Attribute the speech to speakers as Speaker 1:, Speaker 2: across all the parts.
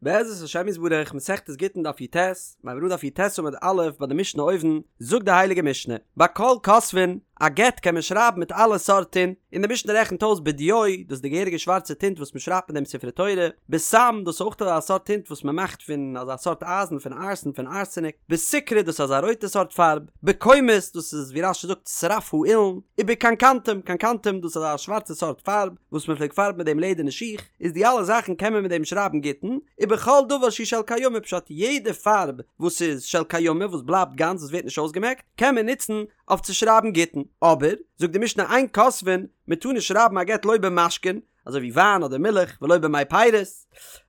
Speaker 1: בעזרת השם יתברך, מסכת גיטין דף יט, מיר הייבן אן דף יט עמוד א' ביי די משנה אויבן, זאגט די הייליגע משנה, בכל כותבין, א גט קען מען שרייבן מיט אלע סארט טינט, און די משנה רעכנט אויס בדיו, דאס איז די געהעריגע שווארצע טינט וואס מען שרייבט מיט דעם ספרי תורה, בסם, דאס איז אויך אזא סארט טינט וואס מען מאכט פון אזא סארט אייזן, פון ארסן, פון ארסעניק, בסיקרא, דאס איז אזא רויטע סארט פארב, בקומוס, דאס איז ווי רש"י זאגט שרף האילן, ובקנקנתום, קנקנתום, דאס איז אזא שווארצע סארט פארב וואס מען פלעגט פארבן מיט דעם לעדערנע שיך. איז די אלע זאכן קען מען מיט דעם שרייבן גיטין, ובכל דבר שהוא של קיימא פשט יעדע פארב וואס איז של קיימא וואס בלייבט גאנץ וואס ווערט נישט אויסגעמעקט קען מען נוצן אויף צו שרייבן גיטין, אבער זאגט די משנה אין כותבין מען טאר נישט שרייבן א גט לא במשקין אזוי ווי וויין אדער מילך ולא במי פירות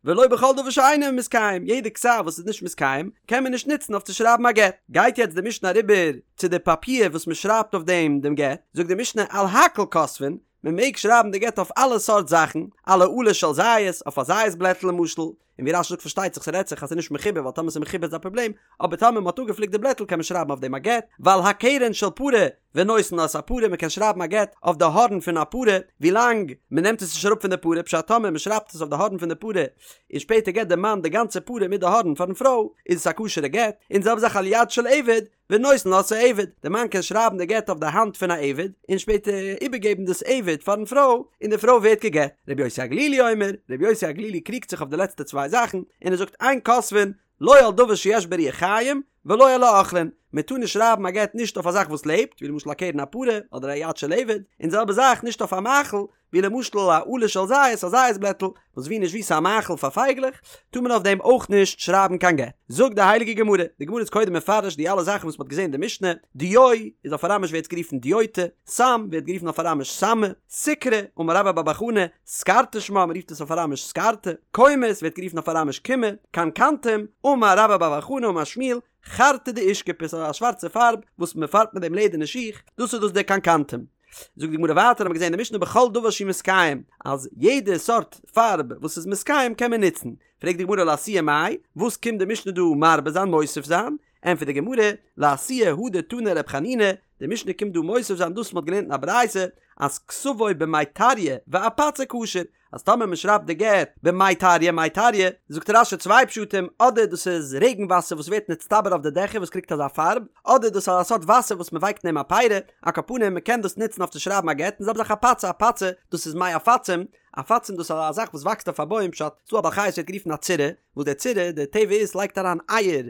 Speaker 1: ולא בכל דבר שאינו מתקיים יעדע כתב וואס איז נישט מתקיים קען מען נישט נוצן אויף צו שרייבן א גט, גייט יעצט די משנה אריבער צו די פאפיר וואס מען שרייבט אויף דעם דעם גט, זאגט די משנה על הכל כותבין מען מעג שרייבן די גט אויף אלע סארט זאכן, על העלה של זית, אויף א זית בלעטל למשל, און ווי רש"י זאגט פארשטייט זיך ס'רעדט זיך אז ס'איז נישט מחובר ווייל טאמער ס'איז מחובר איז א פראבלעם, אבער טאמער מ'האט אפגעפליקט די בלעטל קען מען שרייבן אויף דעם א גט, ועל הקרן של פרה ונותן לה את הפרה מען קען שרייבן א גט אויף די הארן פון א פרה ווילאנג מען נעמט עס נישט אראפ פון די פרה פשט טאמער מען שרייבט עס אויף די הארן פון די פרה און שפעטער געט די מאן די גאנצע פרה מיט די הארן פארן פרוי איז עס א כשר'ע גט, און די זעלבע זאך על יד של עבד ונותן לה את העבד, די מאן קען שרייבן די גט אויף די האנט פון א עבד, און שפעטער איבערגעבן דאס עבד פארן פרוי, און די פרוי ווערט גע'גט. רבי יוסי הגלילי אומר, רבי יוסי הגלילי קריגט זיך אויף די לעצטע צוויי זאכן, און ער זאגט אין כותבין, לא על דבר שיש בו רוח חיים, ולא על האוכלין, מען טאר נישט שרייבן א גט נישט אויף א זאך וואס לעבט, ווי למשל א קרן הפרה, אדער א יד של עבד, און די זעלבע זאך נישט אויף א מאכל, ווי למשל א עלה של זית, א זית בלעטל, וואס ווי נישט ווי ס'איז א מאכל פאר פייגלעך, טאר מען אויף דעם אויך נישט שרייבן קיין גט. זאגט די הייליגע גמרא, די גמרא איז קודם מפרש די אלע זאכן וואס מ'האט געזען אין די משנה, דיו איז אויף אראמיש ווערט עס גערופן דיותא, סם ווערט גערופן אויף אראמיש סמא, סיקרא, אמר רבה בר בר חנה, סקרתא שמה, מ'רופט עס אויף אראמיש סקרתא, קומוס ווערט גערופן אויף אראמיש קומא, קנקנתום, אמר רבה בר בר חנה אמר שמואל, חרתא דאושכפי, ס'איז א שווארצע פארב וואס מ'פארבט מיט דעם לעדערנע שיך, דאס איז דאס דער קנקנתום. זאגט די גמרא ווייטער האבן מיר געזען אין די משנה בכל דבר שהוא מתקיים אז יעדע סארט פארב וואס איז מתקיים קען מען נוצן, פרעגט די גמרא לאתויי מאי, וואס קומט די משנה דא מרבה זיין מוסיף זיין, ענטפערט די גמרא, לאתויי הא דתני רב חנינא, די משנה קומט דא מוסיף זיין דאס וואס מען האט געלערנט אין א ברייתא אז כתבו במי טריא ואפצא כשר, אז טאמער מען שרייבט די גט במי טריא מי טריא, זאגט רש"י צוויי פשטים, אדער דאס איז רעגן וואסער וואס ווערט נצטבר אויף די דעכער וואס קריגט אזא פארב, אדער דאס איז א סארט וואסער וואס מען ווייקט אין אים א פרי, על כל פנים מען קען דאס נוצן אויף צו שרייבן א גט, און זעלבע זאך אפצא אפצא, דאס איז מי עפצים, עפצים דאס איז א זאך וואס וואקסט אויף א בוים פשט, ס'דא א בעל חי וואס ווערט גערופן א צירה, וואס דער צירה, די טבע איז לייגט אריין אייער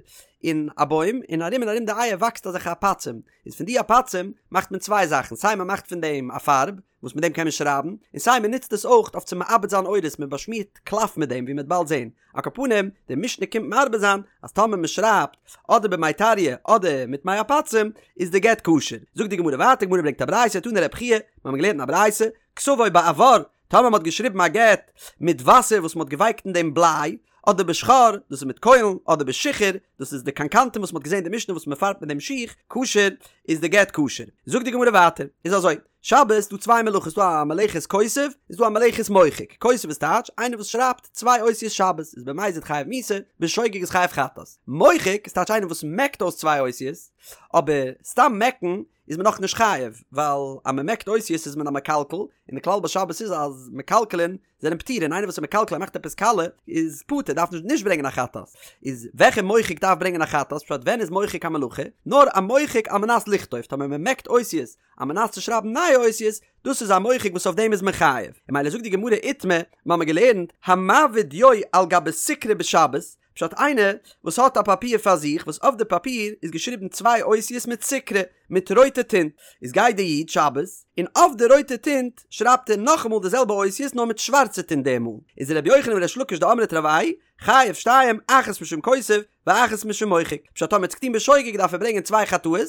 Speaker 1: אין א בוים, און ארום און ארום די אייער וואקסט אזעלכע עפצים, איז פון די עפצים מאכט מען צוויי זאכן, סיי מען מאכט פון דעם א פארב, וואס מיט דעם קען מען שרייבן, און סיי מען נוצט עס אויך אויף צו מעבד זיין עורות, מען באשמירט קלף מיט דעם ווי מען וועט באלד זען. על כל פנים, די משנה קומט מרבה זיין אז טאמער מען שרייבט אדער במי טריא אדער מיט מי עפצים איז די גט כשר. זאגט די גמרא ווייטער, די גמרא ברענגט א ברייתא, תנא רבי חייא, מיר האבן געלערנט אין א ברייתא, כתבו באבר, טאמער מען האט געשריבן א גט מיט וואסער וואס מען האט געווייקט אין דעם בליי, אדער בשחור, דאס איז מיט קוילן, אדער בשיחור, דאס איז די קנקנתום וואס מען האט געזען אין די משנה וואס מען פארבט מיט דעם שיך, כשר, איז די גט כשר. זאגט די גמרא ווייטער, איז אזוי, שבת איז דא צוויי מלאכות, ס'דא א מלאכת כותב, איז דא א מלאכת מוחק, כותב איז טייטש, איינער וואס שרייבט צוויי אותיות שבת, איז במזיד חייב מיתה, בשוגג איז חייב חטאת. מוחק איז טייטש איינער וואס מעקט אויס צוויי אותיות, אבער סתם מעקן איז מען נאך נישט חייב, ווייל אז מען מעקט אותיות איז מען א מקלקל, און די כלל ביי שבת איז אז מקלקלין זענען פטורין, איינער וואס איז מקלקל ער מאכט עפעס קאלע איז פטור דארף נישט נישט ברענגען א חטאת, איז וועלכע מוחק דארף ברענגען א חטאת, פשט ווען איז מוחק א מלאכה, נאר א מוחק על מנת לכתוב, טאמער מען מעקט אותיות על מנת צו שרייבן נייע אותיות, דאס איז א מוחק וואס אויף דעם איז מען חייב, און ממילא זאגט די גמרא איתמר, מיר האבן געלערנט, המעביר דיו על גבי סיקרא בשבת, פשט איינער וואס האט א פאפיר פאר זיך וואס אויף די פאפיר איז געשריבן צוויי אותיות מיט סיקרא מיט רויטע טינט איז גייט די איד שבת און אויף די רויטע טינט שרייבט ער נאכאמאל די זעלבע אותיות נאר מיט שווארצע טינט די מאל איז ר' יוחנן וריש לקיש דאמרי תרוייהו חייב שתיים אחת משום כותב ואחת משום מוחק פשט טאמער האט עס געטון בשוגג דארף ער ברענגען צוויי חטאות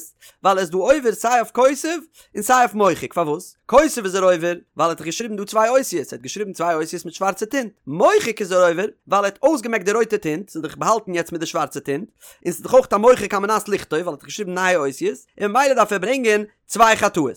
Speaker 1: ווייל ער איז דא עובר סיי אויף כותב און סיי אויף מוחק, פארוואס? כותב איז ער עובר ווייל ער האט דאך געשריבן דא צוויי אותיות, ער האט געשריבן צוויי אותיות מיט שווארצע טינט, מוחק איז ער עובר ווייל ער האט אויסגעמעקט די רויטע טינט, ס'איז דאך באהאלטן יעצט מיט די שווארצע טינט, און ס'איז דאך אויך א מוחק על מנת לכתוב ווייל ער האט דאך געשריבן נייע אותיות, און ממילא דארף ער ברענגען. צוויי חטאות.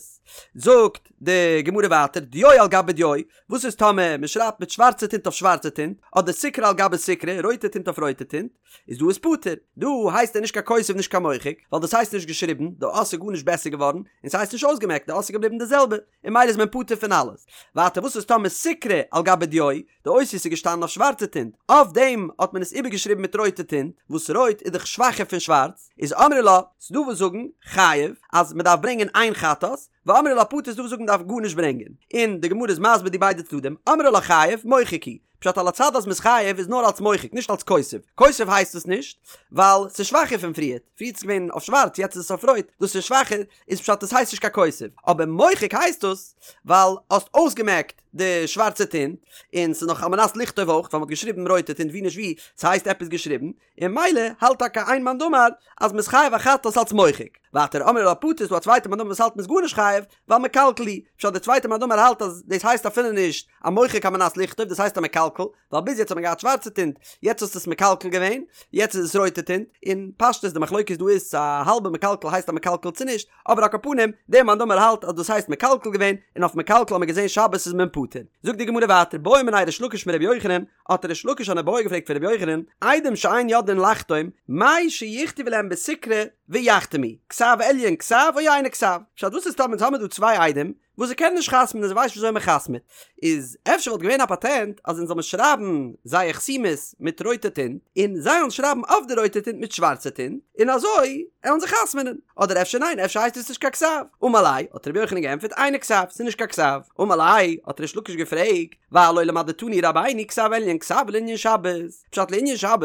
Speaker 1: זאגט די גמרא ווייטער, דיו על גבי דיו, וואס איז טאמער מען שרייבט מיט שווארצע טינט אויף שווארצע טינט, אדער סיקרא על גבי סיקרא, רויטע טינט אויף רויטע טינט, איז דא איז פטור, דא הייסט ער נישט קיין כותב נישט קיין מוחק, ווייל דאס הייסט נישט געשריבן, די אות איז גארנישט בעסער געווארן, און ס'הייסט נישט אויסגעמעקט, די אות איז געבליבן די זעלבע, און ממילא איז מען פטור פון אלעס. ווייטער וואס איז טאמער סיקרא על גבי דיו, די אותיות איז געשטאנען אויף שווארצע טינט, אויף דעם האט מען עס איבערגעשריבן מיט רויטע טינט, וואס רויט איז דאך שוואכער פון שווארץ, איז אמרי לה, ס'דא וואס זאגן, חייב, אז מ'דארף ברענגען איין חטאת, ואמרי לה פטור ס'דא וואס זאגן מ'דארף גארנישט ברענגען. און די גמרא איז מסביר די ביידע צדדים, אמרי לה חייב, מוחק הוא. פשט על הצד אז מ'איז חייב איז נאר אלס מוחק נישט אלס כותב, כותב הייסט עס נישט ווייל ס'איז שוואכער פון פריערט, פריערט איז געווען אויף שווארץ יעצט איז עס אויף רויט, דאס איז שוואכער איז פשט עס הייסט נישט קיין כותב, אבער מוחק הייסט עס ווייל האסט אויסגעמעקט די שווארצע טינט און ס'איז נאך על מנת לכתוב אויך ווייל מ'האט געשריבן רויטע טינט ווי נישט ווי ס'הייסט עפעס געשריבן, און ממילא האלט טאקע איין מאן דאמר אז מ'איז חייב א חטאת אלס מוחק. ווייטער אמרי לה פטור איז דא א צווייטע מאן דאמר וואס האלט מ'איז גארנישט חייב ווייל מקלקל הוא, פשט די צווייטע מאן דאמר האלט אז דאס הייסט אפילו נישט א מוחק על מנת לכתוב דאס הייסט א מקלקל, ווייל ביז יעצט האט מען געהאט שווארצע טינט יעצט האסטו עס מקלקל געווען יעצט איז עס רויטע טינט, און פשטות די מחלוקת דא איז צו א האלבע מקלקל הייסט א מקלקל צו נישט, אבער על כל פנים דער מאן דאמר האלט אז דאס הייסט מקלקל געווען און אויף מקלקל האט מען געזען שבת איז מען פטור. זאגט די גמרא ווייטער בעא מיניה ריש לקיש מרבי יוחנן, האט ריש לקיש אן איבעיא געפרעגט פון רבי יוחנן, עדים שאין יודעין לחתום, מהו שיכתבו להם בסיקרא ויחתמו, כתב עליון כתב או אינו כתב? פשט וואס איז טאמער אונז האמיר דא צוויי עדים וואס זיי קענען נישט חתמ'נען זיי ווייסן נישט וויאזוי מען חתמ'עט, איז אפשר וואלט געווען א פאטענט אז אונז זאל מען שרייבן זייער חתימות מיט רויטע טינט און זיי זאלן שרייבן אויף די רויטע טינט מיט שווארצע טינט און אזוי עלן זיי חתמ'נען, אדער אפשר ניין אפשר הייסט עס נישט קיין כתב, אמר ליה האט רבי יוחנן געענטפערט אינו כתב ס'איז נישט קיין כתב, אמר ליה האט ריש לקיש געפרעגט, והלא למדתנו רבינו כתב עליון כתב לענין שבת, פשט לענין שבת,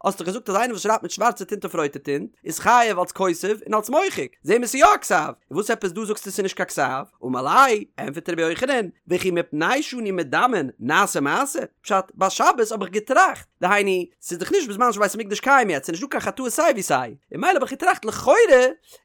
Speaker 1: האסט דאך געזאגט אז איינער וואס שרייבט מיט שווארצע טינט אויף רויטע טינט, איז חייב אלס כותב און אלס מוחק, זעהן מיר ס'איז יא א כתב, און וואס עפעס דא זאגסטו ס'איז נישט קיין כתב? אמר ליה, ענפערט רבי יוחנן, וכי מפני שאנו מדמין נעשה מעשה, פשט, ביי שבת האב איך געטראכט, דהיינו, ס'איז דאך נישט בזמן שבית המקדש קיים יעצט, ס'איז נישט דא קיין חטאות סיי ווי סיי, און ממילא האב איך געטראכט לכאורה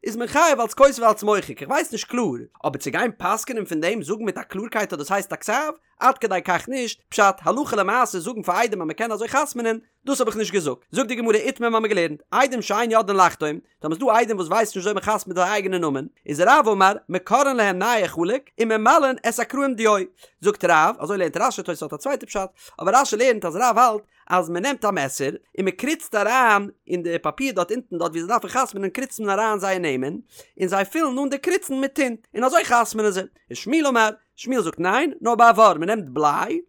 Speaker 1: איז מען חייב אלס כותב אלס מוחק, איך ווייס נישט קלאר, אבער צו גיין פסק'נען פון דעם זאגן מיט א קלארקייט אז דאס הייסט א כתב, עד כדי כך נישט, פשט, הלכה למעשה זאגן פאר עדים אז מען קען אזוי חתמ'נען, דאס האב איך נישט געזאגט. זאגט די גמרא איתמר מ'האמיר געלערנט, עדים שאין יודעין לחתום, טאמער ס'דא עדים וואס ווייסן נישט וויאזוי מען חתמ'ט זייער אייגענע נאמען, איז רב אמר, מקרעין להם נייר חלק, וממלאין את הקרעים דיו. זאגט רב, אזוי לערנט רש"י, תוס' האט א צווייטע פשט, אבער רש"י לערנט אז רב האלט אז מען נעמט א מעסער און מען קריצט אריין אין די פאפיר דארט אונטן דארט ווי זיי דארפן חתמ'נען קריצט מען אריין זייער נעמען, און זיי פילן אן די קריצן מיט טינט, און אזוי חתמ'נען זיי. ושמואל אמר, שמואל זאגט ניין, נאר באבר, מען נעמט בליי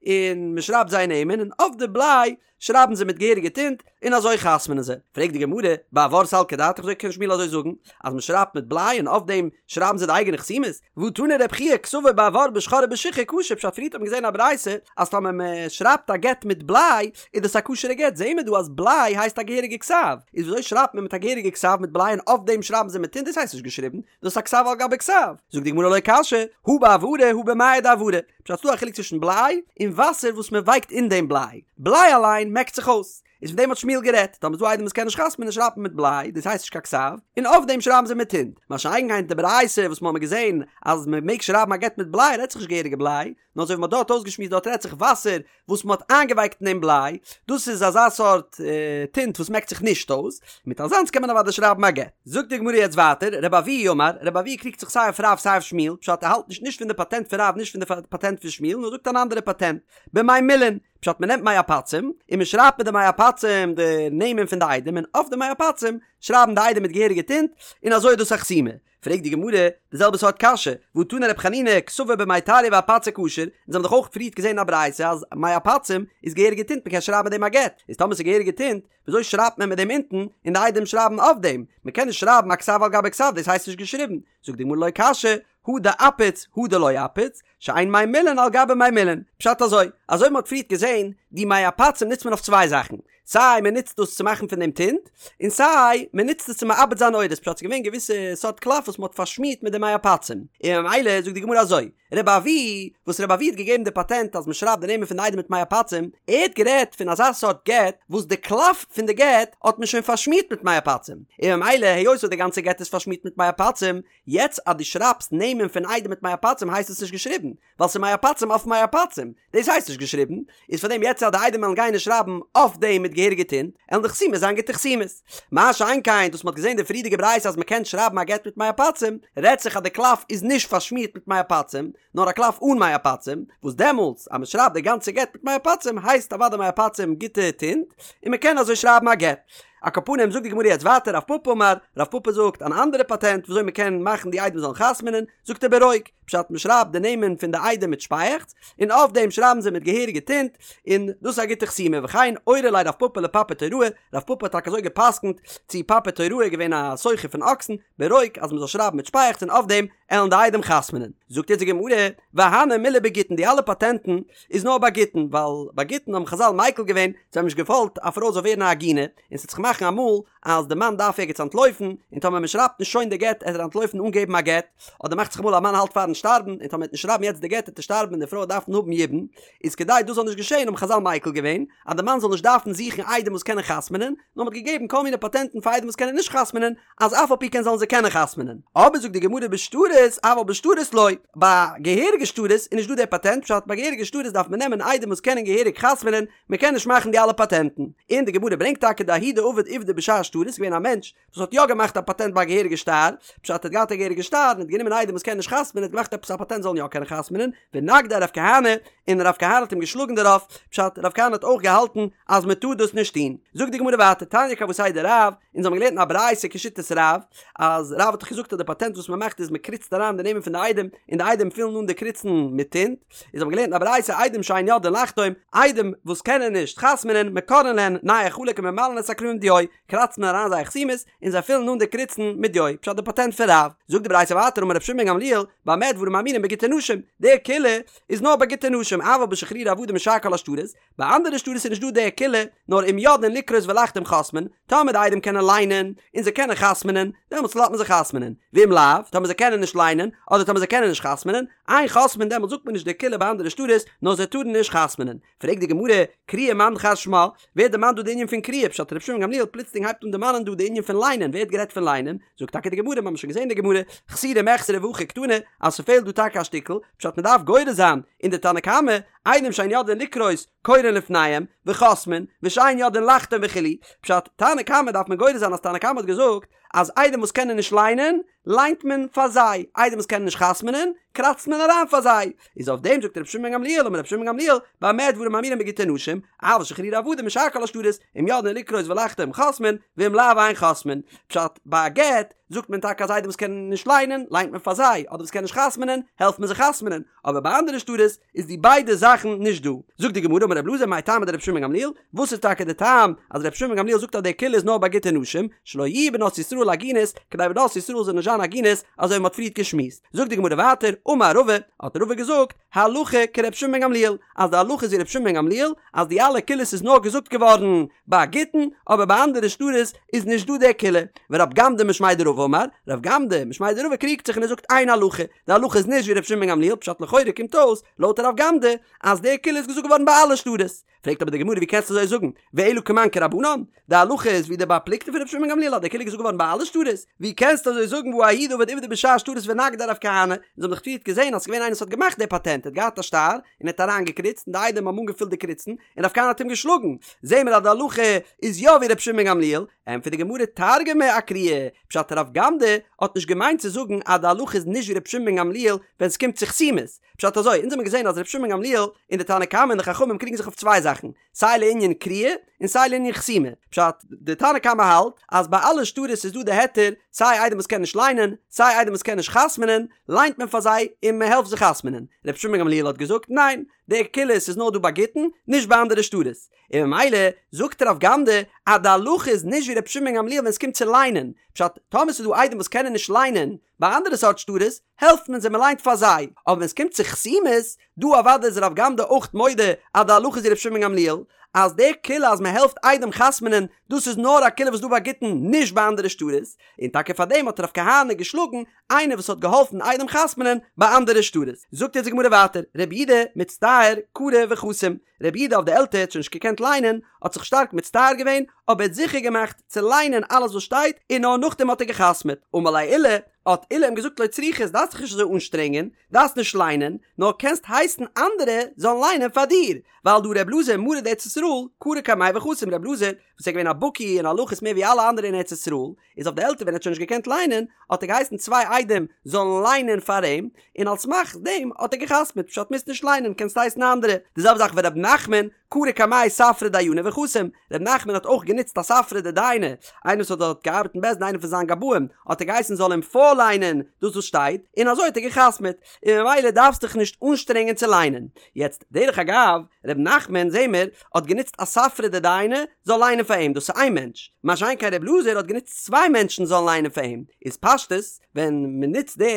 Speaker 1: און מען שרייבט זייער נעמען און אויף די בליי שרייבן זיי מיט געהעריגע טינט און אזוי חתמ'נען זיי. פרעגט די גמרא, באבר סלקא דעתך וויאזוי קען שמואל אזוי זאגן אז מען שרייבט מיט בליי און אויף דעם שרייבן זיי די אייגענע חתימות? והא תני רבי חייא כתבו באבר בשחור ובשיחור כשר פשט פריערט האט מען געזען א ברייתא אז טאמער מען שרייבט א גט מיט בליי איז דאס א כשר'ע גט זעהן מיר דא אז בליי הייסט א געהעריגע כתב איז וויאזוי שרייבט מען מיט א געהעריגע כתב מיט בליי און אויף דעם שרייבן זיי מיט טינט דאס הייסט נישט געשריבן דאס איז א כתב על גבי כתב. זאגט די גמרא לא קשיא, הא באברא הא במיא דאברא. פשט ס'דא א חילוק צווישן בליי און וואסער וואס מען ווייקט אין דעם בליי. בליי אליין מעקט זיך אויס. איז פון דעם האט שמואל גערעדט. טאמער איז דא עדים וואס קען נישט חתמ'נען שרייבט מען מיט בליי, דאס הייסט נישט קיין כתב, און אויף דעם שרייבן זיי מיט טינט. מה שאין כן די ברייתא וואס מ'האמיר געזען אז מען מעג שרייבן א גט מיט בליי רעדט זיך נישט געהעריגע בליי, נאר אזוי ווי מ'האט דארט אויסגעשמועסט דארט רעדט זיך וואסער וואס מ'האט איינגעווייקט אין דעם בליי, דאס איז אזא סארט טינט וואס מעקט זיך נישט אויס, מיט אזאנס קען מען אוודאי שרייבן א גט. זאגט די גמרא יעצט ווייטער, רבי אבהו אמר, רבי אבהו קריגט זיך סיי אויף רב סיי אויף שמואל, פשט ער האלט נישט נישט פון די פאטענט פון רב נישט פון די פאטענט פון שמואל נאר זאגט אן אנדערע פאטענט, במי מילין, פשט מ'נעמט מי עפצים און מ'שרייבט מיט די מי עפצים די נעמען פון די עדים און אויף די מי עפצים שרייבן די עדים מיט געהעריגע טינט און אזוי איז דאס א חתימה. פרעגט די גמרא די זעלבע סארט קשיא, והא תני רב חנינא כתבו במי טריא ואפצא כשר, אונז האבן דאך אויך פריערט געזען אין א ברייתא אז מי עפצים איז געהעריגע טינט מ'קען שרייבן מיט דעם א גט, איז טאמער ס'איז געהעריגע טינט וויאזוי שרייבט מען מיט דעם אונטן און די עדים שרייבן אויף דעם? מ'קען נישט שרייבן א כתב על גבי כתב דאס הייסט נישט געשריבן, זאגט די גמרא לא קשיא, הא דאפיץ הא דלא אפיץ, שאין מי מילין על גבי מי מילין, פשט אזוי, אזוי ווי מ'האט פריערט געזען, די מי עפצים נוצט מען אויף צוויי זאכן, סיי מען נוצט דאס צו מאכן פון דעם טינט, און סיי מען נוצט עס צו מעבד זיין עורות, פשט ס'איז געווען געוויסע סארט קלף וואס מען האט פארשמירט מיט די מי עפצים, און ממילא זאגט די גמרא אזוי, רבי אבהו, וואס רבי אבהו האט געגעבן די פאטענט אז מען שרייבט די נעמען פון די עדים מיט מי עפצים, ער האט גערעדט פון אזא סארט גט וואס די קלף פון די גט האט מען שוין פארשמירט מיט מי עפצים, און ממילא היות וואס די גאנצע גט איז פארשמירט מיט מי עפצים, יעצט אז דו שרייבסט נעמען פון עדים מיט מי עפצים הייסט עס נישט געשריבן, ווייל ס'איז מי עפצים אויף מי עפצים, דאס הייסט נישט געשריבן, איז פאר דעם יעצט אז די עדים וועלן גיין און שרייבן אויף דעם מיט געהעריגע. געהעריגע טינט, עלן די חתימות זיין גוטע חתימות. מה שאין כן דאס מ'האט געזען די פריערדיגע ברייתא אז מ'קען שרייבן א גט מיט מי עפצים, רעדט זיך אז די קלף איז נישט פארשמירט מיט מי עפצים, נאר א קלף אן מי עפצים, וואס דעמאלטס אז מ'שרייבט די גאנצע גט מיט מי עפצים הייסט אוודאי מי עפצים גוטע טינט, און מ'קען אזוי שרייבן א גט. על כל פנים זאגט די גמרא יעצט ווייטער רב פפא אמר, רב פפא זאגט אן אנדערע פאטענט וויאזוי מ'קען מאכן די עדים זאלן חתמ'נען, זאגט ער ברוק, פשט מ'שרייבט די נעמען פון די עדים מיט שפייעכץ, און אויף דעם שרייבן זיי מיט געהעריגע טינט, און דאס איז א גוטע חתימה, וכן אורי ליה רב פפא לפפי תוראי, רב פפא האט טאקע אזוי גע'פסק'נט צו פפי תוראי געווען א סוחר פון אקסן, ברוק אז מ'זאל שרייבן מיט שפייעכץ און אויף דעם עלן די עדים חתמ'נען. זאגט יעצט די גמרא, והני מילי בגיטין די אלע פאטענטן איז נאר ביי גיטין, ווייל ביי גיטין האבן חזל מיקל געווען, זיי האבן נישט געוואלט א פרוי זאל ווערן א עגונה, און ס'וועט זיך מאכן אמאל אז די מאן דארף ערגעץ אנטלויפן, און טאמער מ'שרייבט נישט שוין די גט עט ער אנטלויפן אן געבן א גט, אדער מאכט זיך אמאל א מאן האלט פארן שטארבן, און טאמער מ'עט נישט שרייבן יעצט די גט עט ער שטארבן און די פרוי וועט דארפן האבן יבום, איז כדי דאס זאל נישט געשען האבן חזל מיקל געווען אז די מאן זאל נישט דארפן זוכן עדים וואס קענען חתמ'נען, נאר מ'האט געגעבן כל מיני פאטענטן פאר עדים וואס קענען נישט חתמ'נען, אז אף על פי כן זאלן זיי קענען חתמ'נען. אבער זאגט די גמרא בשטרות, אבל בשטרות לא, ביי געהעריגע שטרות איז נישט דא דער פאטענט, פשט ביי געהעריגע שטרות דארף מען נעמען עדים וואס קענען געהעריג חתמ'נען, מען קען נישט מאכן די אלע פאטענטן. און די גמרא ברענגט טאקע דההוא דעבד עובדא בשאר שטרות, ס'איז געווען א מענטש וואס האט יא געמאכט א פאטענט ביי א געהעריגע שטר, פשט ער האט געהאט א געהעריגע שטר און האט גענומען עדים וואס קענען נישט חתמ'נען, האט געמאכט עפעס א פאטענט זאלן יא קענען חתמ'נען, ונגדיה רב כהנא, און רב כהנא האט אים געשלאגן דערויף, פשט רב כהנא האט אויך געהאלטן אז מען טאר דאס נישט טון. זאגט די גמרא ווייטער, תניא כוותיה דרב, אונז האבן געלערנט אין א ברייתא כשיטת רב, אז רב האט דאך געזאגט אז די פאטענט וואס מען מאכט איז מען קריצט אריין די נעמען פון די עדים, און די עדים פילן אן די קריצן מיט טינט, איז האבן געלערנט אין א ברייתא עדים שאין יודעין לחתום, עדים וואס קענען נישט חתמ'נען, מקרעין להן נייר חלק וממלאין את הקרעים דיו, קראצט מען אריין זייער חתימות, און זיי פילן אן די קריצן מיט דיו, פשט די פאטענט פון רב. זאגט די ברייתא ווייטער אמר רבי שמעון בן גמליאל, במה דברים אמורים בגיטי נשים, די קולא איז נאר ביי גיטי נשים, אבל בשחרורי עבדים ושאר כל השטרות, ביי אנדערע שטרות איז נישט דא די קולא, נאר אם יודעין לקרות ולחתום חותמין, טאמער די עדים קענען ליינען, און זיי קענען חתמ'נען, דעמאלטס לאזט מען זיי חתמ'נען, ואם לאו, טאמער זיי קענען נישט ליינען, אדער טאמער זיי קענען נישט חתמ'נען, אין חותמין דעמאלטס זאגט מען נישט די קולא ביי אנדערע שטרות, נאר זיי טארן נישט חתמ'נען. פרעגט די גמרא, קריאה מאן דכר שמה, ווער דערמאנט דא די ענין פון קריאה, פשט רבי שמעון גמליאל פלוצלינג הייבט אן דערמאנען דא די ענין פון ליינען, ווער האט גערעדט פון ליינען? זאגט טאקע די גמרא, מיר האבן שוין געזען די גמרא, חסורי מחסרא והכי קתני, אז ס'פעלט דא טאקע א שטיקל, פשט מ'דארף גורס זיין אין די תנא קמא, עדים שאין יודעין לקרות קורין לפניהם, וחותמין, ושאין יודעין לחתום וכו', פשט, תנא קמא דארף מען גורס זיין אז תנא קמא האט געזאגט אז עדים וואס קענען נישט ליינען, ליינט מען פאר זיי, עדים וואס קענען נישט חתמ'נען, קראצט מען אריין פאר זיי, איז אויף דעם זאגט רבי שמעון בן גמליאל אמר רבי שמעון בן גמליאל, במה דברים אמורים בגיטי נשים, אבל שחרורי עבדים ושאר כל השטרות, אם יודעין לקרות ולחתום חותמין, ואם לאו אין חותמין, פשט, ביי א גט, זאגט מען טאקע אז עדים וואס קענען נישט ליינען, ליינט מען פאר זיי, אדער וואס קענען נישט חתמ'נען, העלפט מען זיי חתמ'נען, אבער ביי אנדערע שטרות איז די ביידע זאכן נישט דא. זאגט די גמרא אמר רבי אלעזר מאי טעמא דרבי שמעון בן גמליאל, וואס איז טאקע די טעם אז רבי שמעון בן גמליאל זאגט אז די קולא איז נאר ביי גיטי נשים, שלא יהו בנות ישראל עגונות, כדי בנות ישראל זאלן נישט זיין עגונות, אזוי ווי מען האט פריערט געשמועסט. זאגט די גמרא ווייטער, אמר רבא, האט רבא געזאגט, הלכה כרבי שמעון בן גמליאל, אז די הלכה איז ווי רבי שמעון בן גמליאל, אז די אלע קולות איז נאר געזאגט געווארן ביי גיטין, אבער ביי אנדערע שטרות איז נישט דא די קולא. ורב גמדא משמיה דרבא אמר, רב גמדא משמיה דרבא קריגט זיך און ער זאגט אין הלכה, די הלכה איז נישט ווי רבי שמעון בן גמליאל, פשט לכאורה קומט אויס, לויט רב גמדא, אז די קולא איז געזאגט געווארן ביי אלע שטרות. פרעגט אבער די גמרא ווי קענסטו אזוי זאגן, ואלא כמאן כרבנן? די הלכה איז ווי די בר פלוגתא פון רבי שמעון בן גמליאל אז די קולא איז געזאגט געווארן ביי אלע שטרות, ווי קענסטו אזוי זאגן והא ההוא דעבד עובדא בשאר שטרות ונגדיה רב כהנא, אונז האבן דאך פריערט געזען אז ס'איז געווען איינער וואס האט געמאכט די פאטענט, ער האט געהאט א שטר און ער האט אריינגעקריצט און די עדים האבן אנגעפילט די קריצן און רב כהנא האט אים געשלאגן, זעהן מיר אז די הלכה איז יא ווי רבי שמעון בן גמליאל, ענטפערט די גמרא תרגמה אקריאה, פשט רב גמדא האט נישט געמיינט צו זאגן אז די הלכה איז נישט ווי רבי שמעון בן גמליאל ווען ס'קומט צו חתימות, פשט אזוי, אונז האבן געזען אז רבי שמעון בן גמליאל און די תנא קמא און די חכמים קריגן זיך אויף צוויי זאכן, סיי לענין קריאה און סיי לענין חתימה. פשט, די תנא קמא האלט אז ביי אלע שטרות איז דא די היתר, סיי עדים וואס קענען נישט ליינען, סיי עדים וואס קענען נישט חתמ'נען, ליינט מען פאר זיי און מען העלפט זיי חתמ'נען. רבי שמעון בן גמליאל האט געזאגט, ניין, די קולות איז נאר דא ביי גיטין, נישט ביי אנדערע שטרות. און ממילא זאגט רב גמדא אז די הלכה איז נישט ווי רבי שמעון בן גמליאל ווען עס קומט צו ליינען. פשט, טאמער ס'איז דא עדים וואס קענען נישט ליינען, ביי אנדערע סארט שטרות העלפט מען זיי מען ליינט פאר זיי, אבער ווען עס קומט צו חתימות, דא אוודאי איז רב גמדא אויך מודה אז די הלכה איז ווי רבי שמעון בן גמליאל, אז די קולא אז מען העלפט עדים חתמ'נען דאס איז נאר א קולא וואס דא ביי גיטין נישט ביי אנדערע שטרות, און טאקע פאר דעם האט רב כהנא געשלאגן איינער וואס האט געהאלפן עדים חתמ'נען ביי אנדערע שטרות. זאגט יעצט די גמרא ווייטער, רבי יהודה מצטער קרא וחתים, רבי יהודה אויף די עלטער האט שוין נישט געקענט ליינען, האט זיך שטארק מצטער געווען, אבער ער האט זיכער געמאכט צו ליינען אלעס וואס שטייט, און נאר נאכדעם האט ער גע'חתמ'עט. אמר ליה עולא, האט עולא אים געזאגט לא צריכת, דארפסט דיך נישט אזוי אנשטרענגען, דארפסט נישט ליינען, נאר קענסט הייסן אנדערע זאלן ליינען פאר דיר, ווייל דהא ר' אלעזר מרא דארץ ישראל קרי קמיה וחתים, ר' אלעזר וואס איז געווען א בקי אין הלכות מער ווי אלע אנדערע אין ארץ ישראל, איז אויף די עלטער ווען ער האט שוין נישט געקענט ליינען, האט ער געהייסן צוויי עדים זאלן ליינען פאר אים, און על סמך דעם האט ער געחתמעט, פשט מוזט נישט ליינען קענסט הייסן אנדערע, די זעלבע זאך ור' נחמן קרי קמיה ספרא דיינא וחתים, ר' נחמן האט אויך גענוצט א ספרא דדיינא, איינער וואס האט דארט געארבעט אין בית דין איינער פון זיין גבאים, האט ער געהייסן זאל אים פארליינען דאס וואס שטייט, און אזוי האט ער געחתמעט, און ממילא דארפסט דיך נישט אנשטרענגען צו ליינען. יעצט, דרך אגב, ר' נחמן, זעהן מיר, האט גענוצט א ספרא דדיינא זאל ליינען פאר אים, דאס איז איין מענטש, מה שאין כן ר' אלעזר האט גענוצט צוויי מענטשן זאלן ליינען פאר אים, איז פשטות, ווען מען נוצט די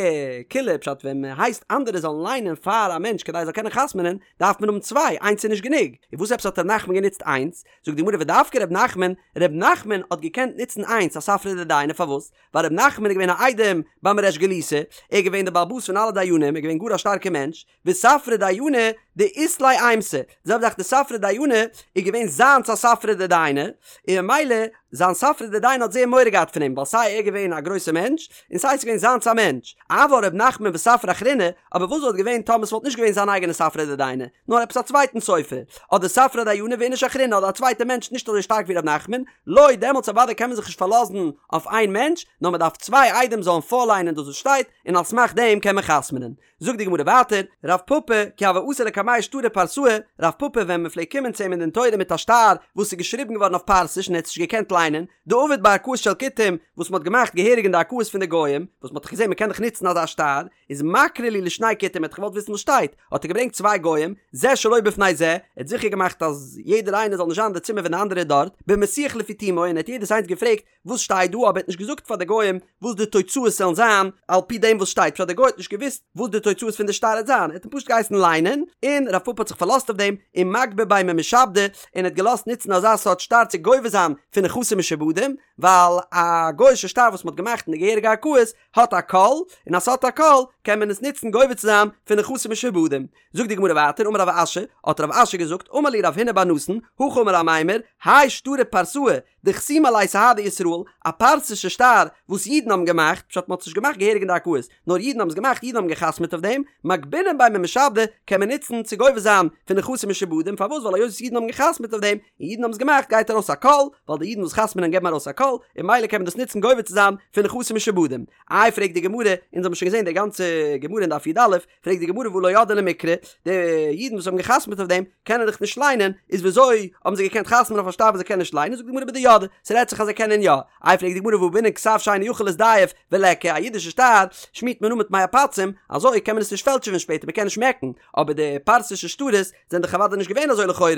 Speaker 1: קולא פשט ווען מען הייסט אנדערע זאלן ליינען פאר א מענטש כדי ער זאל קענען חתמ'נען, דארף מען האבן צוויי, איינס איז נישט גענוג. און וואס עפעס האט ר' נחמן גענוצט איינס? זאגט די גמרא ודווקא ר' נחמן, ר' נחמן האט געקענט נוצן איינס א ספרא דדיינא פארוואס? ווייל ר' נחמן איז געווען א איידעם ביים ריש גלותא, ער איז געווען דער בעל הבית פון אלע דיינים, ער איז געווען גאר א שטארקע מענטש, וספרא דיינא דאית ליה אימתא, די זעלבע זאך די ספרא דיינא איז געווען זיינס א ספרא דדיינא, און ממילא זיין ספרא דדיינא האט זייער מורא געהאט פון אים, ווייל סיי ער איז געווען א גרויסע מענטש, און סיי ס'איז געווען זיינס א מענטש. אבל ר' נחמן וספרא אחרינא, אבער וואס וואלט געווען טאמער ס'וואלט נישט געווען זיין אייגענע ספרא דדיינא, נאר עפעס א צווייטן סופר, אדער ספרא דיינא ואיניש אחרינא אדער א צווייטע מענטש נישט אזוי שטארק ווי ר' נחמן, לא, דעמאלטס אוודאי קען מען זיך נישט פארלאזן אויף איין מענטש, נאר מ'דארף צוויי עדים זאלן פארליינען דאס וואס שטייט, און על סמך דעם קען מען חתמ'נען. זאגט די גמרא ווייטער, רב פפא, כי הוה אתי לקמיה שטרי פרסאי, רב פפא ווען מען פלעגט קומען צו אים אין דין תורה מיט א שטר וואס איז געשריבן געווארן אויף פרסיש און ער האט עס נישט געקענט ליינען, דעביד בערכאות של כותים, וואס מען האט געמאכט געהעריג אין די ערכאות פון די גוים, וואס מען האט דאך געזען מען קען דאך נוצן אזא שטר, איז מקרי להו לשני כותים, ער האט געוואלט וויסן וואס שטייט, האט ער געברענגט צוויי גוים, זה שלא בפני זה, ער האט זיכער געמאכט אז יעדער איינער זאל נישט זיין אין די צימער ווען די אנדערע איז דארט, במסיח לפי תומו, און ער האט יעדעס איינס געפרעגט, וואס שטייט דא אבער ער האט נישט געזאגט פאר די גוים וואס די תוצאות זאלן זיין על פי דעם וואס שטייט פשט די גוי האט נישט געוואוסט וואס די תוצאות פון די שטר וועט זיין ער האט אים פשוט געהייסן ליינען און רב פפא האט זיך פארלאזט אויף דעם און מגבי ביה ממשעבדי און האט געלאזט נוצן אזא סארט שטר צו גובה זיין פון נכסים משועבדים ווייל א גוי'שע שטר וואס מען האט געמאכט אין די געהעריגע ערכאות האט א קול און אז ס'האט א קול קען מען עס נוצן גובה צו זיין פון נכסים משועבדים זאגט די גמרא ווייטער אמר רב אשי האט רב אשי געזאגט אמר לי רב הונא בר נתן הכי אמר אמימר האי שטרא פרסאי דחתימי עליה סהדי ישראל, א פרסישע שטר וואס אידן האבן געמאכט, פשט מ'האט עס נישט געמאכט געהעריג אין די ערכאות, נאר אידן האבן עס געמאכט, אידן האבן גע'חתמ'עט אויף דעם, מגבינן ביה ממשעבדי, קען מען נוצן צו גובה זיין פון נכסים משועבדים, פארוואס ווייל היות וואס אידן האבן גע'חתמ'עט אויף דעם, און אידן האבן עס געמאכט גייט ארויס א קול, ווייל די אידן וואס חתמ'נען געבן ארויס א קול, און ממילא קען מען דאס נוצן גובה צו זיין פון נכסים משועבדים. איי פרעגט די גמרא, אונז האבן שוין געזען די גאנצע גמרא אין דף י"א, פרעגט די גמרא והא לא ידעי למיקרי, די אידן וואס האבן גע'חתמ'עט אויף דעם קענען דאך נישט ליינען, איז וויאזוי האבן זיי געקענט חתמ'ען אויף א שטר וואס זיי קענען נישט ליינען, זאגט די גמרא בדידעי, ס'רעדט זיך אז זיי קענען יא, איי פרעגט די גמרא והא בעינן כתב שאינו יכול להזדייף וליכא, א אידישע שטר שמירט מען אן מיט מי עפצים, אזוי קען מען עס נישט פעלטשעווען שפעטער, מען קען נישט מעקן, אבער די פרסישע שטרות זענען דאך אוודאי נישט געווען אזוי לכאורה,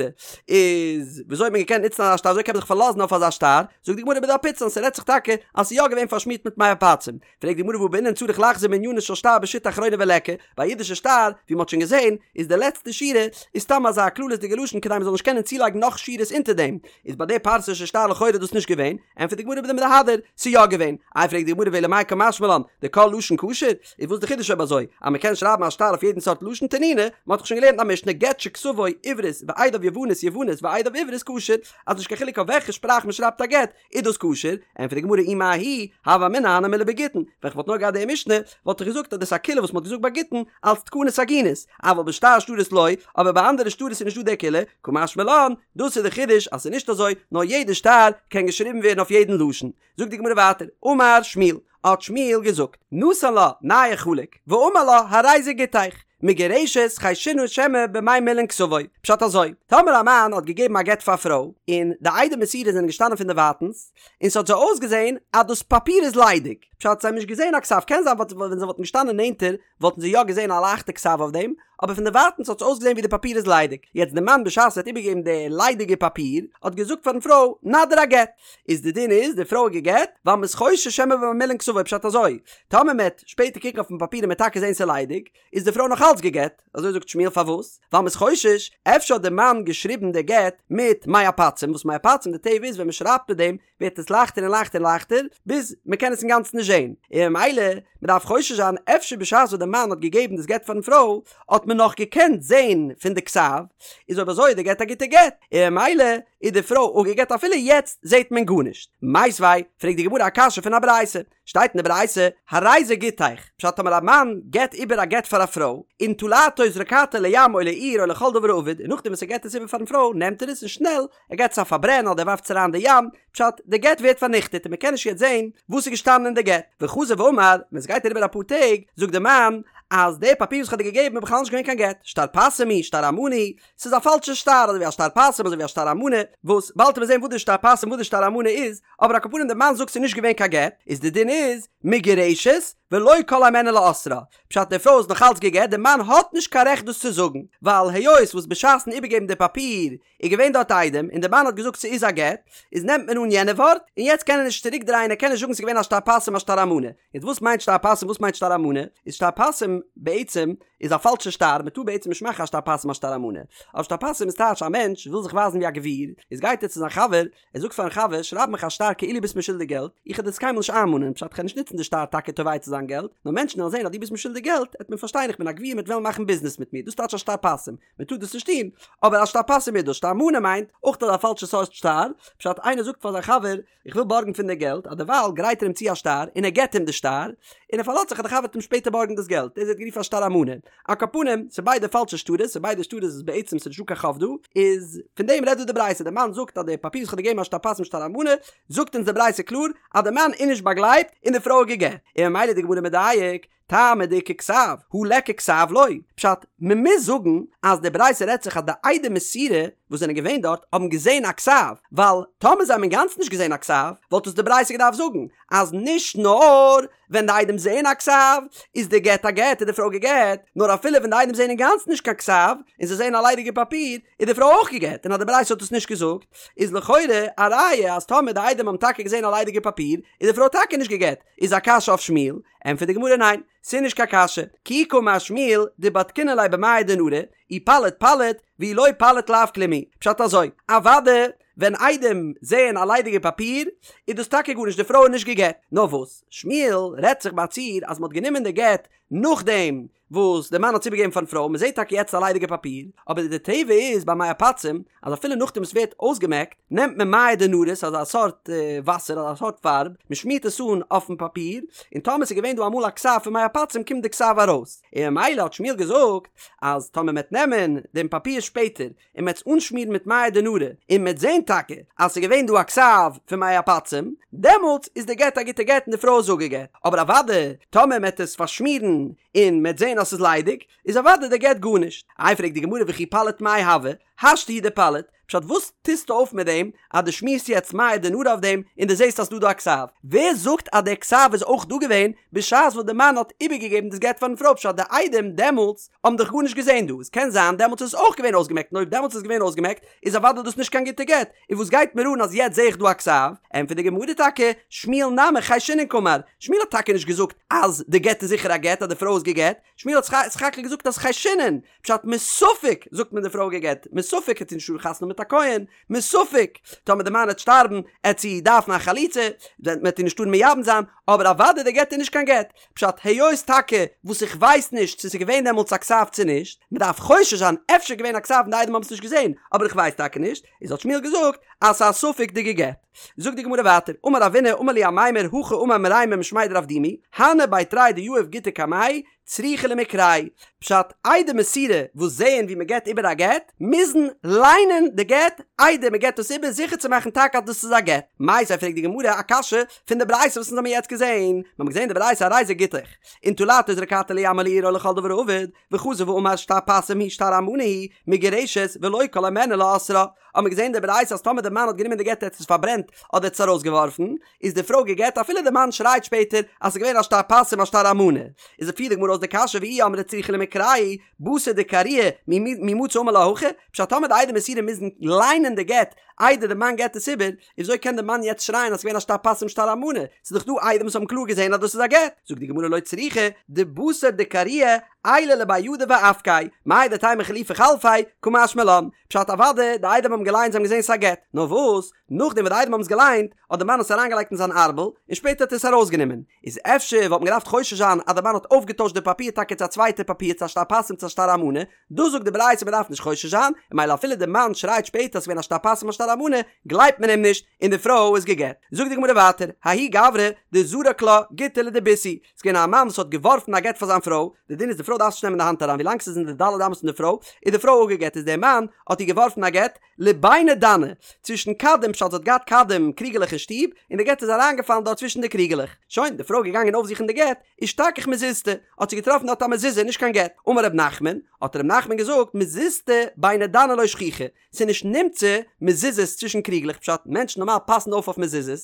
Speaker 1: איז וויאזוי האט מען געקענט נוצן אזא שטר, וויאזוי קען מען זיך פארלאזן אויף אזא שטר, זאגט די גמרא בדאפיצן, ס'רעדט זיך טאקע אז ס'איז יא געווען פארשמירט מיט מי עפצים, פרעגט די גמרא והא בעינן צריך לחזור מענינה של שטר בשיטה אחרונה וליכא, ביי א אידישע שטר, ווי מ'האט שוין געזען, איז די לעצטע שורה איז סתם אזא כללית'דיגע לשון כדי מ'זאל נישט קענען צולייגן נאך שורות אונטער דעם, איז ביי די פרסישע שטר לכאורה דאס נישט געווען, ענטפערט די גמרא בדמהדר, ס'איז יא געווען, איי פרעגט די גמרא ואלא מאי קא משמע לן, דכל לשון כשר, איז וואס די חידוש אויב אזוי, אז מ'קען שרייבן א שטר אויף יעדן סארט לשון תנינא, מ'האט דאך שוין געלערנט א משנה גט שכתבו עברית ועדיו יוונית יוונית ועדיו עברית כשר, אז נישט קיין חילוק אויף וועלכע שפראך מ'שרייבט א גט, איז דאס כשר? ענטפערט די גמרא אי מההיא, הוה אמינא הני מילי בגיטין, ווען כ'וואלט נאר געהאט די משנה, וואלט איך געזאגט אז דאס איז א קולא וואס מ'האט געזאגט ביי גיטין, אלס תקנת עגונות, אבל בשאר שטרות לא, אבער ביי אנדערע שטרות איז נישטא די קולא, קא משמע לן, דאס איז די חידוש אז ס'איז נישט אזוי, נאר יעדע שטר קען געשריבן ווערן אויף יעדן לשון. זאגט די גמרא ווייטער, אמר שמואל, האט שמואל געזאגט, נתן לה נייר חלק, ואמר לה הרי זה גיטך, מגורשת חיישינן שמא במי מילין כתבו, פשט אזוי, טאמער א מאן האט געגעבן א גט פאר א פרוי, און די עדי מסירה זענען געשטאנען פון דערווייטענס, און ס'האט זיי אויסגעזען אז דאס פאפיר איז ליידיג, פשט זיי האבן נישט געזען א כתב, קען זיין ווען זיי וואלטן געשטאנען נענטער וואלטן זיי יא געזען א לייכטע כתב אויף דעם, אבער פון דערווייטענס האט עס אויסגעזען ווי די פאפיר איז ליידיג, יעצט די מאן בשעת ער האט איבערגעגעבן די ליידיגע פאפיר, האט געזאגט פארן פרוי, נא דיר א גט, איז די דין איז די פרוי איז גע'גט, ווייל מ'איז חושש שמא במי מילין כתבו, פשט אזוי, טאמער מ'עט שפעטער קוקן אויפן פאפיר און מ'עט טאקע זען ס'איז ליידיג, איז די פרוי נאך אלץ גע'גט, אזוי זאגט שמואל פארוואס? ווייל מ'איז חושש, אפשר האט די מאן געשריבן די גט מיט מי עפצים, וואס מי עפצים די טבע איז ווען מ'שרייבט מיט דעם ווערט עס לייכטער און לייכטער און לייכטער, ביז מ'קען עס אינגאנצן נישט זען, און ממילא מ'דארף חושש זיין אפשר בשעת וואס די מאן האט געגעבן דאס גט פארן פרוי האט מען נאך געקענט זען פון די כתב, איז אויב אזוי איז די גט א גוטע גט, און ממילא. איז די פרוי אפגעגט אפילו יעצט זעט מען גארנישט. מיתיבי, פרעגט די גמרא א קשיא פון א ברייתא, שטייט אין די ברייתא, הרי זה גיטך, פשט טאמער א מאן געבט איבער א גט פאר א פרוי, ונטלתו וזרקתו לים או לאור או לכל דבר האבד, און נאכדעם וואס ער געבט עס איבער פארן פרוי נעמט ער עס און שנעל ער געבט עס א פארברען אדער ער ווארפט עס אריין אין די ים, פשט, די גט ווערט פארניכטעט און מען קען נישט יעצט זען וואס איז געשטאנען אין די גט. וחזר ואמר, ווען עס גייט אריבער אפאר טעג, זאגט די מאן, אז די פאפיר וואס איך האב דיר געגעבן איז בכלל נישט געווען קיין גט, שטר פסים הוא, שטר אמנה הוא, ס'איז א פאלשע שטר, אזוי ווי א שטר פסים אזוי ווי א שטר אמנה, וואס באלד וועט מען זען וואס די שטר פסים וואס די שטר אמנה איז, אבער על כל פנים די מאן זאגט ס'איז נישט געווען קיין גט, איז די דין איז, מגורשת, ולא כל הימנו לאוסרה, פשט די פרוי איז נאך אלץ גע'גט, די מאן האט נישט קיין רעכט דאס צו זאגן, ווייל היות וואס בשעת'ן איבערגעבן די פאפיר איז געווען דארט עדים און די מאן האט געזאגט ס'איז א גט, איז נעמט מען אן יענע ווארט, און יעצט קען ער נישט צוריק דרייען ער קען נישט זאגן ס'איז געווען א שטר פסים א שטר אמנה. יעצט וואס מיינט שטר פסים וואס מיינט שטר אמנה? איז שטר פסים בעצם איז א פאלשע שטר מ'טאר בעצם נישט מאכן א שטר פסים א שטר אמנה. אבער שטר פסים איז טייטש א מענטש וויל זיך ווייזן ווי א גביר, איז גייט ער צו זיין חבר, ער זאגט פארן חבר שרייב מיך א שטר כאילו ביסט מיר שולדיג געלט, איך וועל דאס קיינמאל נישט איינמאנען, פשט כ'וועל נישט נוצן די שטר טאקע תובע צו זיין געלט, נאר מענטשן וועלן זען אז דו ביסט מיר שולדיג געלט, עט מען פארשטיין איך בין א גביר מ'עט וועלן מאכן ביזנעס מיט מיר, דאס טייטש א שטר פסים. מען טאר דאס נישט טון, אבער א שטר פסים איז דאס, שטר אמנה מיינט אויך אזא פאלשע סארט שטר, פשט איינער זאגט פאר זיין חבר איך וויל בארגן פון דיר געלט, אז דערווייל גרייט ער אים צו א שטר און ער געבט אים די שטר, און ער פארלאזט זיך אז די חבר וועט אים שפעטער בארגן דאס געלט, דאס ווערט גערופן א שטר אמנה. על כל פנים, ס'איז ביידע פאלשע שטרות, ס'איז ביידע שטרות וואס בעצם ס'איז נישטא קיין חוב דא, איז פון דעם רעדט דא די ברייתא, די מאן זאגט אז די פאפיר וואס איך האב דיר געגעבן א שטר פסים שטר אמנה, זאגט אונז די ברייתא קלאר אז די מאן איז נישט באגלייבט און די פרוי איז גע'גט, און ממילא איז די גמרא מדייק, טעמא דאיכא כתב, הא ליכא כתב לא. פשט, מען מוז זאגן אז די ברייתא רעדט זיך אז די עדי מסירה וואס זענען געווען דארט האבן געזען א כתב, ווייל טאמער זיי האבן אינגאנצן נישט געזען א כתב, וואלט עס די ברייתא געדארפט זאגן אז נישט נאר ווען די עדים זעען א כתב איז די גט א גט איז די פרוי גע'גט, נאר אפילו ווען די עדים זעען אינגאנצן נישט קיין כתב און זיי זעען א ליידיגע פאפיר איז די פרוי אויך גע'גט, און אז די ברייתא האט עס נישט געזאגט איז לכאורה א ראיה אז טאמער די עדים האבן טאקע געזען א ליידיגע פאפיר איז די פרוי טאקע נישט גע'גט, איז א קשיא אויף שמואל? ענטפערט די גמרא ניין, ס'איז נישט קיין קשיא, כי קאמר שמואל דבדקינן ליה במיא דנרא, אי פליט פליט, ואי לא פליט לאו כלום הוא, פשט אזוי, אוואדע ווען עדים זעען א ליידיגע פאפיר איז דאס טאקע גארנישט די פרוי איז נישט גע'גט, נאר וואס שמואל רעדט זיך ביי א ציור אז מ'האט גענומען די גט נאכדעם וואס די מאן האט עס איבערגעגעבן פארן פרוי, מען זעט טאקע יעצט א ליידיגע פאפיר, אבער די טבע איז ביי מי עפצים אז אפילו נאכדעם עס ווערט אויסגעמעקט, נעמט מען מיא דנרא, ס'איז אזא סארט וואסער, אזא סארט פארב, מען שמירט עס אן אויפן פאפיר, און טאמער עס איז געווען דא אמאל א כתב פון מי עפצים קומט די כתב ארויס, און ממילא האט שמואל געזאגט אז טאמער מען וועט נעמען דעם פאפיר שפעטער און מ'עט עס אנשמירן מיט מיא דנרא, און מ'עט זען טאקע אז ס'איז געווען דא א כתב פון מי עפצים, דעמאלטס איז די גט א גוטע גט און די פרוי איז אפגעגט. אבער אוודאי טאמער מ'עט עס פארשמירן און מ'עט זען אז ס'איז ליידיג, איז אוודאי די גט גארנישט. איי פרעגט די גמרא וכי פליט מאי הוי, השתא הוא דפליט, פשט וואס טוסטו אויף מיט דעם אז דו שמירסט יעצט מיא דנרא אויף דעם און דו זעסט אז ס'דא דא א כתב? ווער זאגט אז דער כתב איז אויך דא געווען בשעת וואס די מאן האט איבערגעגעבן דאס גט פארן פרוי פשט די עדים דעמאלטס האבן דאך גארנישט געזען דא, עס קען זיין דעמאלטס איז עס אויך געווען אויסגעמעקט און אויב דעמאלטס איז געווען אויסגעמעקט איז אוודאי דאס נישט קיין גוטע גט, און וואס גייט מיר אן אז יעצט זע איך דא א כתב? ענטפערט די גמרא טאקע, שמואל נמי חיישינן קאמר, שמואל האט טאקע נישט געזאגט אז די גט איז זיכער א גט אז די פרוי איז גע'גט, שמואל האט סך הכל געזאגט אז חיישינן, פשט מספק זאגט מען די פרוי גע'גט, מספק העט זי נישט האבן חתונה מיט א כהן, מספק טאמער די מאן העט שטארבן העט זי דארפן א חליצה, מען העט איר נישט טארן מייבם זיין, אבער אוודאי די גט איז נישט קיין גט, פשט היות טאקע וואס איך ווייס נישט צו ס'איז געווען דעמאלטס א כתב צו נישט, מען דארף חושש זיין אפשר געווען א כתב און די עדים האבן עס נישט געזען, אבער איך ווייס טאקע נישט, איז האט שמואל געזאגט אז ס'איז א ספק דגע'גט. זאגט די גמרא ווייטער, אמר רבינא אמר לי אמימר הכי אמר מרימר משמיה דרב דימי, הני בי תרי דיהיב גיטא קמיה, צריכי למיקרייה, פשט, עדי מסירה וואס זעען ווי מען געבט איבער א גט, מוזן ליינען די גט איידער מען געבט עס איבער זיכער צו מאכן טאקע אז דאס איז א גט. מיתיבי פרעגט די גמרא א קשיא פון די ברייתא וואס אונז האבן יעצט געזען, מיר האבן געזען די ברייתא הרי זה גיטך, ונטלתו וזרקתו לים או לאור או לכל דבר האבד, וחזר ואמר שטר פסים הוא שטר אמנה הוא, מגורשת ולא כל הימנו לאוסרה, האבן מיר געזען די ברייתא אז טאמער די מאן האט גענומען די גט ער האט עס פארברענט אדער האט עס ארויסגעווארפן, איז די פרוי גע'גט אפילו די מאן שרייט שפעטער אז ס'איז געווען א שטר פסים א שטר אמנה. איז פירט די גמרא אויס די קשיא ואי אמרת צריכי למיקרייה בתר דקריוה מי מצי אמר לה הכי, פשט טאמער די עדי מסירה מוזן ליינען די גט איידער די מאן געט עס איבער, איז וויאזוי קען די מאן יעצט שרייען אז ס'איז געווען א שטר פסים שטר אמנה, ס'איז דאך דא עדים וואס האבן קלאר געזען אז דאס איז א גט. זאגט די גמרא לא צריכא דבתר דקריוה עייליה לבי ידיה ואפקיה, מהו דתימא חלופי חלפיה, קא משמע לן, פשט אוודאי די עדים האבן געליינט זיי האבן געזען ס'איז א גט, נאר וואס? נאכדעם וואס די עדים האבן עס געליינט, האט די מאן עס אריינגעלייגט אין זיין ארבל, און שפעטער האט ער עס ארויסגענומען. איז אפשר וואלט מען געדארפט חושש זיין אז די מאן האט אויפגעטוישט די פאפיר טאקע צו א צווייטע פאפיר צו א שטר פסים צו א שטר אמנה, דא זאגט די ברייתא מען דארף נישט חושש זיין, און ממילא אפילו די מאן שרייט שפעטער אז ס'געווען א שטר פסים א שטר. על האלמנה, גלייבט מען אים נישט, און די פרוי איז גע'גט. זאגט די גמרא ווייטער, ההוא גברא דזרק לה גיטא לדביתהו, ס'איז געווען א מאן וואס האט געווארפן א גט פאר זיין פרוי, די דין איז די פרוי דארף עס נישט נעמען אין די האנט אריין ווילאנג ס'איז אין די ד' אמות פון די פרוי, איז די פרוי אפגע'גט, איז דער מאן האט איר געווארפן א גט, לביני דני, צווישן כדים, פשט זי האט געהאט כדים קריגעלעך אין שטוב, און די גט איז אריינגעפאלן דארט צווישן די קריגעלעך. שוין, די פרוי איז געגאנגען אויפזוכן די גט, אשתכח מזוזתא, האט זי געטראפן דארט א מזוזה, נישט קיין גט. אמר ר' נחמן, האט ר' נחמן געזאגט, מזוזתא ביני דני לא שכיחא, ס'איז נישט נמצא מזוזות צווישן קריגלעך, פשט, מענטשן נארמאל פאסן אויף אויף מזוזות,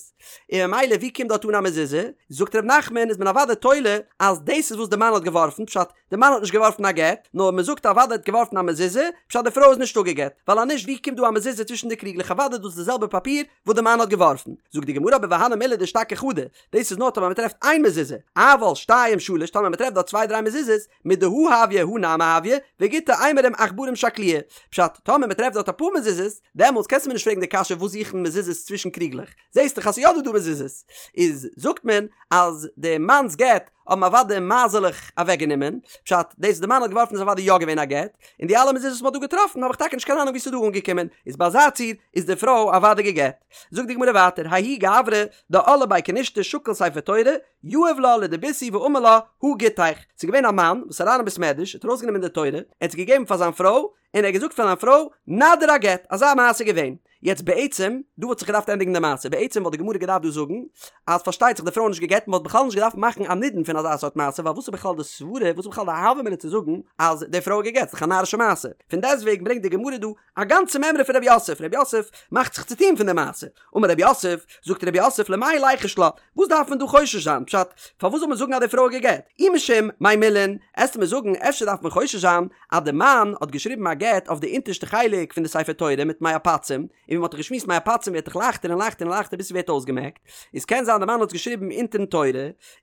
Speaker 1: און ממילא ווי קומט דארט אן א מזוזה? זאגט ר' נחמן, איז מען אוודאי תולה אז דאס איז וואס די מאן האט געווארפן, פשט, די מאן האט נישט געווארפן א גט, נאר מען זאגט אוודאי האט געווארפן א מזוזה, פשט די פרוי איז נישט אפגעגט, ווייל אז נישט ווי קומט דא א מזוזה צווישן די קריגלעך אוודאי דאס איז די זעלבע פאפיר וואס די מאן האט געווארפן, זאגט די גמרא אבער והני מילי דאשתכח חדא, דאס איז נאר טאמער מען טרעפט איין מזוזה, אבל שתיים שלש טאמער מען טרעפט דארט צוויי דריי מזוזות, מידי הא הויא הא נמי הויא, וגיטא אימורים עכברים שקלוה, פשט טאמער מען טרעפט דארט אפאר מזוזות, דעמאלטס קענסטו מיר נישט פרעגן די קשיא וואס זוכן מזוזות צווישן קריגלעך, זעסט דאך אז ס'איז יא דא דא מזוזות, איז זאגט מען אז די מאנ'ס גט האבן אוודאי מייזעלעך אוועק גענומען, פשט, דאס וואס די מאן האט געווארפן איז אוודאי יא געווען א גט, און די אלע מזוזות וואס מ'האט דא געטראפן האב איך טאקע נישט קיין אהנונג ווי ס'איז דא אנגעקומען, איז ביי אזא ציור איז די פרוי אוודאי גע'גט. זאגט די גמרא ווייטער, ההוא גברא דעל לבי כנישתא שקיל ספר תורה, יהב לה לדביתהו ואמר לה, הא גיטיך. ס'איז געווען א מאן וואס איז אריין אין בית מדרש, האט ארויסגענומען די תורה, ער האט עס געגעבן פאר זיין פרוי, און ער האט געזאגט פאר זיין פרוי, נא דיר א גט, אזא מעשה איז געווען. יעצט בעצם, דא וואלט זיך געדארפט ענדיגן די מעשה, בעצם וואלט די גמרא געדארפט דא זאגן, אז פארשטייט זיך די פרוי איז נישט גע'גט, מען וואלט בכלל נישט געדארפט מאכן א נידון פון אזא סארט מעשה, ווייל וואס איז בכלל די סברה, וואס איז בכלל די הוה אמינא צו זאגן אז די פרוי איז גע'גט, ס'איז דאך א נארישע מעשה. פון דעסטוועגן ברענגט די גמרא דא א גאנצע מימרא פון רב יוסף, רב יוסף מאכט זיך צו טון פון די מעשה. אמר רב יוסף, זאגט רב יוסף למאי ליחוש לה, וואס דארף מען דא חושש זיין, פשט, פארוואס זאל מען זאגן אז די פרוי איז גע'גט? אי משום מי מילין, עסטו מיר זאגן אפשר דארף מען חושש זיין אז די מאן האט געשריבן א גט אויף די אונטערשטע חלק פון די ספר תורה מיט מי עפצים, און ווי מען האט דאך געשמועסט מי עפצים ווערט דאך לייכטער און לייכטער און לייכטער ביז ס'ווערט אויסגעמעקט, איז קען זיין די מאן האט עס געשריבן אונטערן תורה,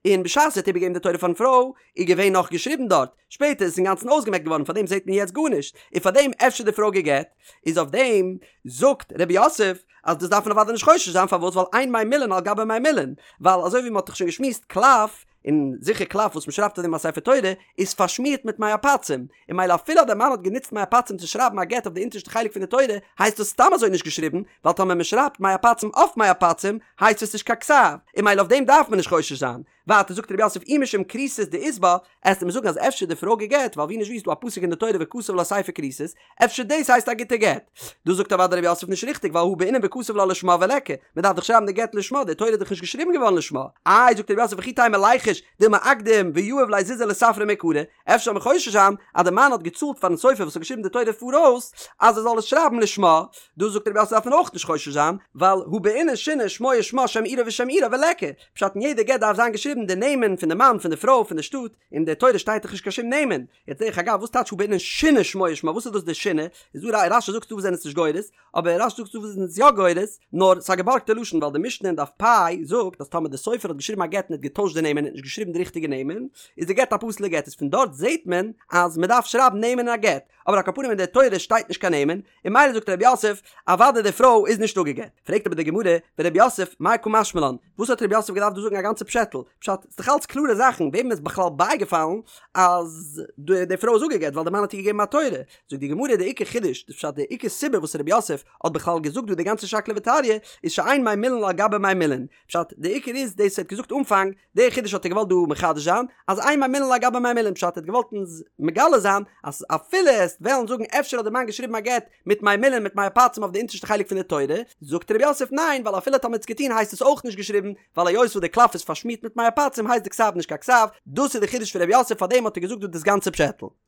Speaker 1: און בשעת ער האט איבערגעגעבן די תורה פארן פרוי איז געווען נאך געשריבן דארט, שפעטער איז עס אינגאנצן אויסגעמעקט געווארן פארדעם זעט מען יעצט גארנישט, און פארדעם אפשר די פרוי גע'גט, איז אויף דעם זאגט רב יוסף אז דאס דארף מען אוודאי נישט חושש זיין פארוואס ווייל אין מי מילין על גבי מי מילין, ווייל אזוי ווי מען האט דאך שוין געשמועסט קלף, און זיכער קלף וואס מען שרייבט אויף דעם א ספר תורה איז פארשמירט מיט מי עפצים, און ממילא אפילו אז דער מאן האט גענוצט מי עפצים צו שרייבן א גט אויף די אונטערשטע חלק פון די תורה הייסט דאס סתם אזוי נישט געשריבן, ווייל טאמער מען שרייבט מי עפצים אויף מי עפצים הייסט עס נישט קיין כתב, און ממילא אויף דעם דארף מען נישט חושש זיין. ווייטער זאגט רב יוסף אי משום כריתות דאית בה, עסטו מיר זאגן אז אפשר די פרוי גע'גט, ווייל ווי נישט ווי איז דא א פסוק אין די תורה וכתב לה ספר כריתות, אפשר דאס הייסט א גוטע גט? דאס זאגט אוודאי רב יוסף נישט ריכטיג ווייל הא בעינן וכתב לה לשמה וליכא, מען דארף דאך שרייבן די גט לשמה, די תורה איז דאך נישט געשריבן געווארן לשמה. איי זאגט רב יוסף וכי תימא ליחוש דילמא אקדים ויהיב ליה זוזי לספריה מעיקרא, אפשר זאל מען חושש זיין אז די מאן האט געצאלט פארן סופר וואס האט געשריבן די תורה פאראויס אז ער זאל עס שרייבן לשמה, דא זאגט רב יוסף דארף מען אויך נישט חושש זיין ווייל הא בעינן שינה שמו ושמה שם עירו ושם עירה וליכא, פשט אין יעדע גט דארף זיין געשריבן די נעמען פון די מאן פון די פרוי פון די שטאט, אין די תורה שטייט דאך נישט קיין שום נעמען, יעצט דרך אגב וואס טייטש הא בעינן שינה שמו ושמה וואס איז דאס די שינה, איז דא רש"י זאגט ס'דא וואס זענען עס נישט גורס, אבער רש"י זאגט ס'דא וואס זענען עס יא גורס, נאר ס'איז א געבארגטע לשון ווייל די משנה אין דף פ' זאגט אז טאמער די סופר האט געשריבן א גט און האט געטוישט די נעמען און האט נישט געשריבן די ריכטיגע נעמען איז די גט א פסול'ע גט איז פון דארט זעהט מען אז מ'דארף שרייבן נעמען אין א גט, אבער על כל פנים אין די תורה שטייט נישט קיין נעמען, און ממילא זאגט רב יוסף, אוודאי די פרוי איז נישט אפגעגט. פרעגט אבער די גמרא, ורב יוסף, מאי קא משמע לן, וואס האט רב יוסף געדארפט דא זאגן א גאנצע פשעטל? פשט, ס'איז דאך אלץ קלארע זאכן, וועם איז בכלל בייגעפאלן אז די פרוי איז אפגעגט ווייל די מאן האט איר געגעבן א תורה? זאגט די גמרא, די עיקר חידוש, די פשט, די עיקר סיבה וואס רב יוסף האט בכלל געזאגט דא די גאנצע שקלא וטריא, איז שאין מי מילין על גבי מי מילין. פשט, די עיקר איז דאס ער האט געזאגט אנפאנג, די חידוש האט ער געוואלט דא מחדש זיין, אז אין מי מילין על גבי מי מילין, פשט ער האט געוואלט אונז מגלה זיין, אז אפילו עסט וועלן זאגן אפשר האט די מאן געשריבן א גט מיט מי מילין מיט מי עפצים אויף די אונטערשטע חלק פון די תורה, זאגט רב יוסף ניין ווייל אפילו טאמער האט עס געטון הייסט עס אויך נישט געשריבן, ווייל היות וואס די קלף איז פארשמירט מיט מי עפצים הייסט די כתב נישט קיין כתב, דאס איז די חידוש פון רב יוסף פארדעם האט ער געזאגט דא דאס גאנצע פשעטל.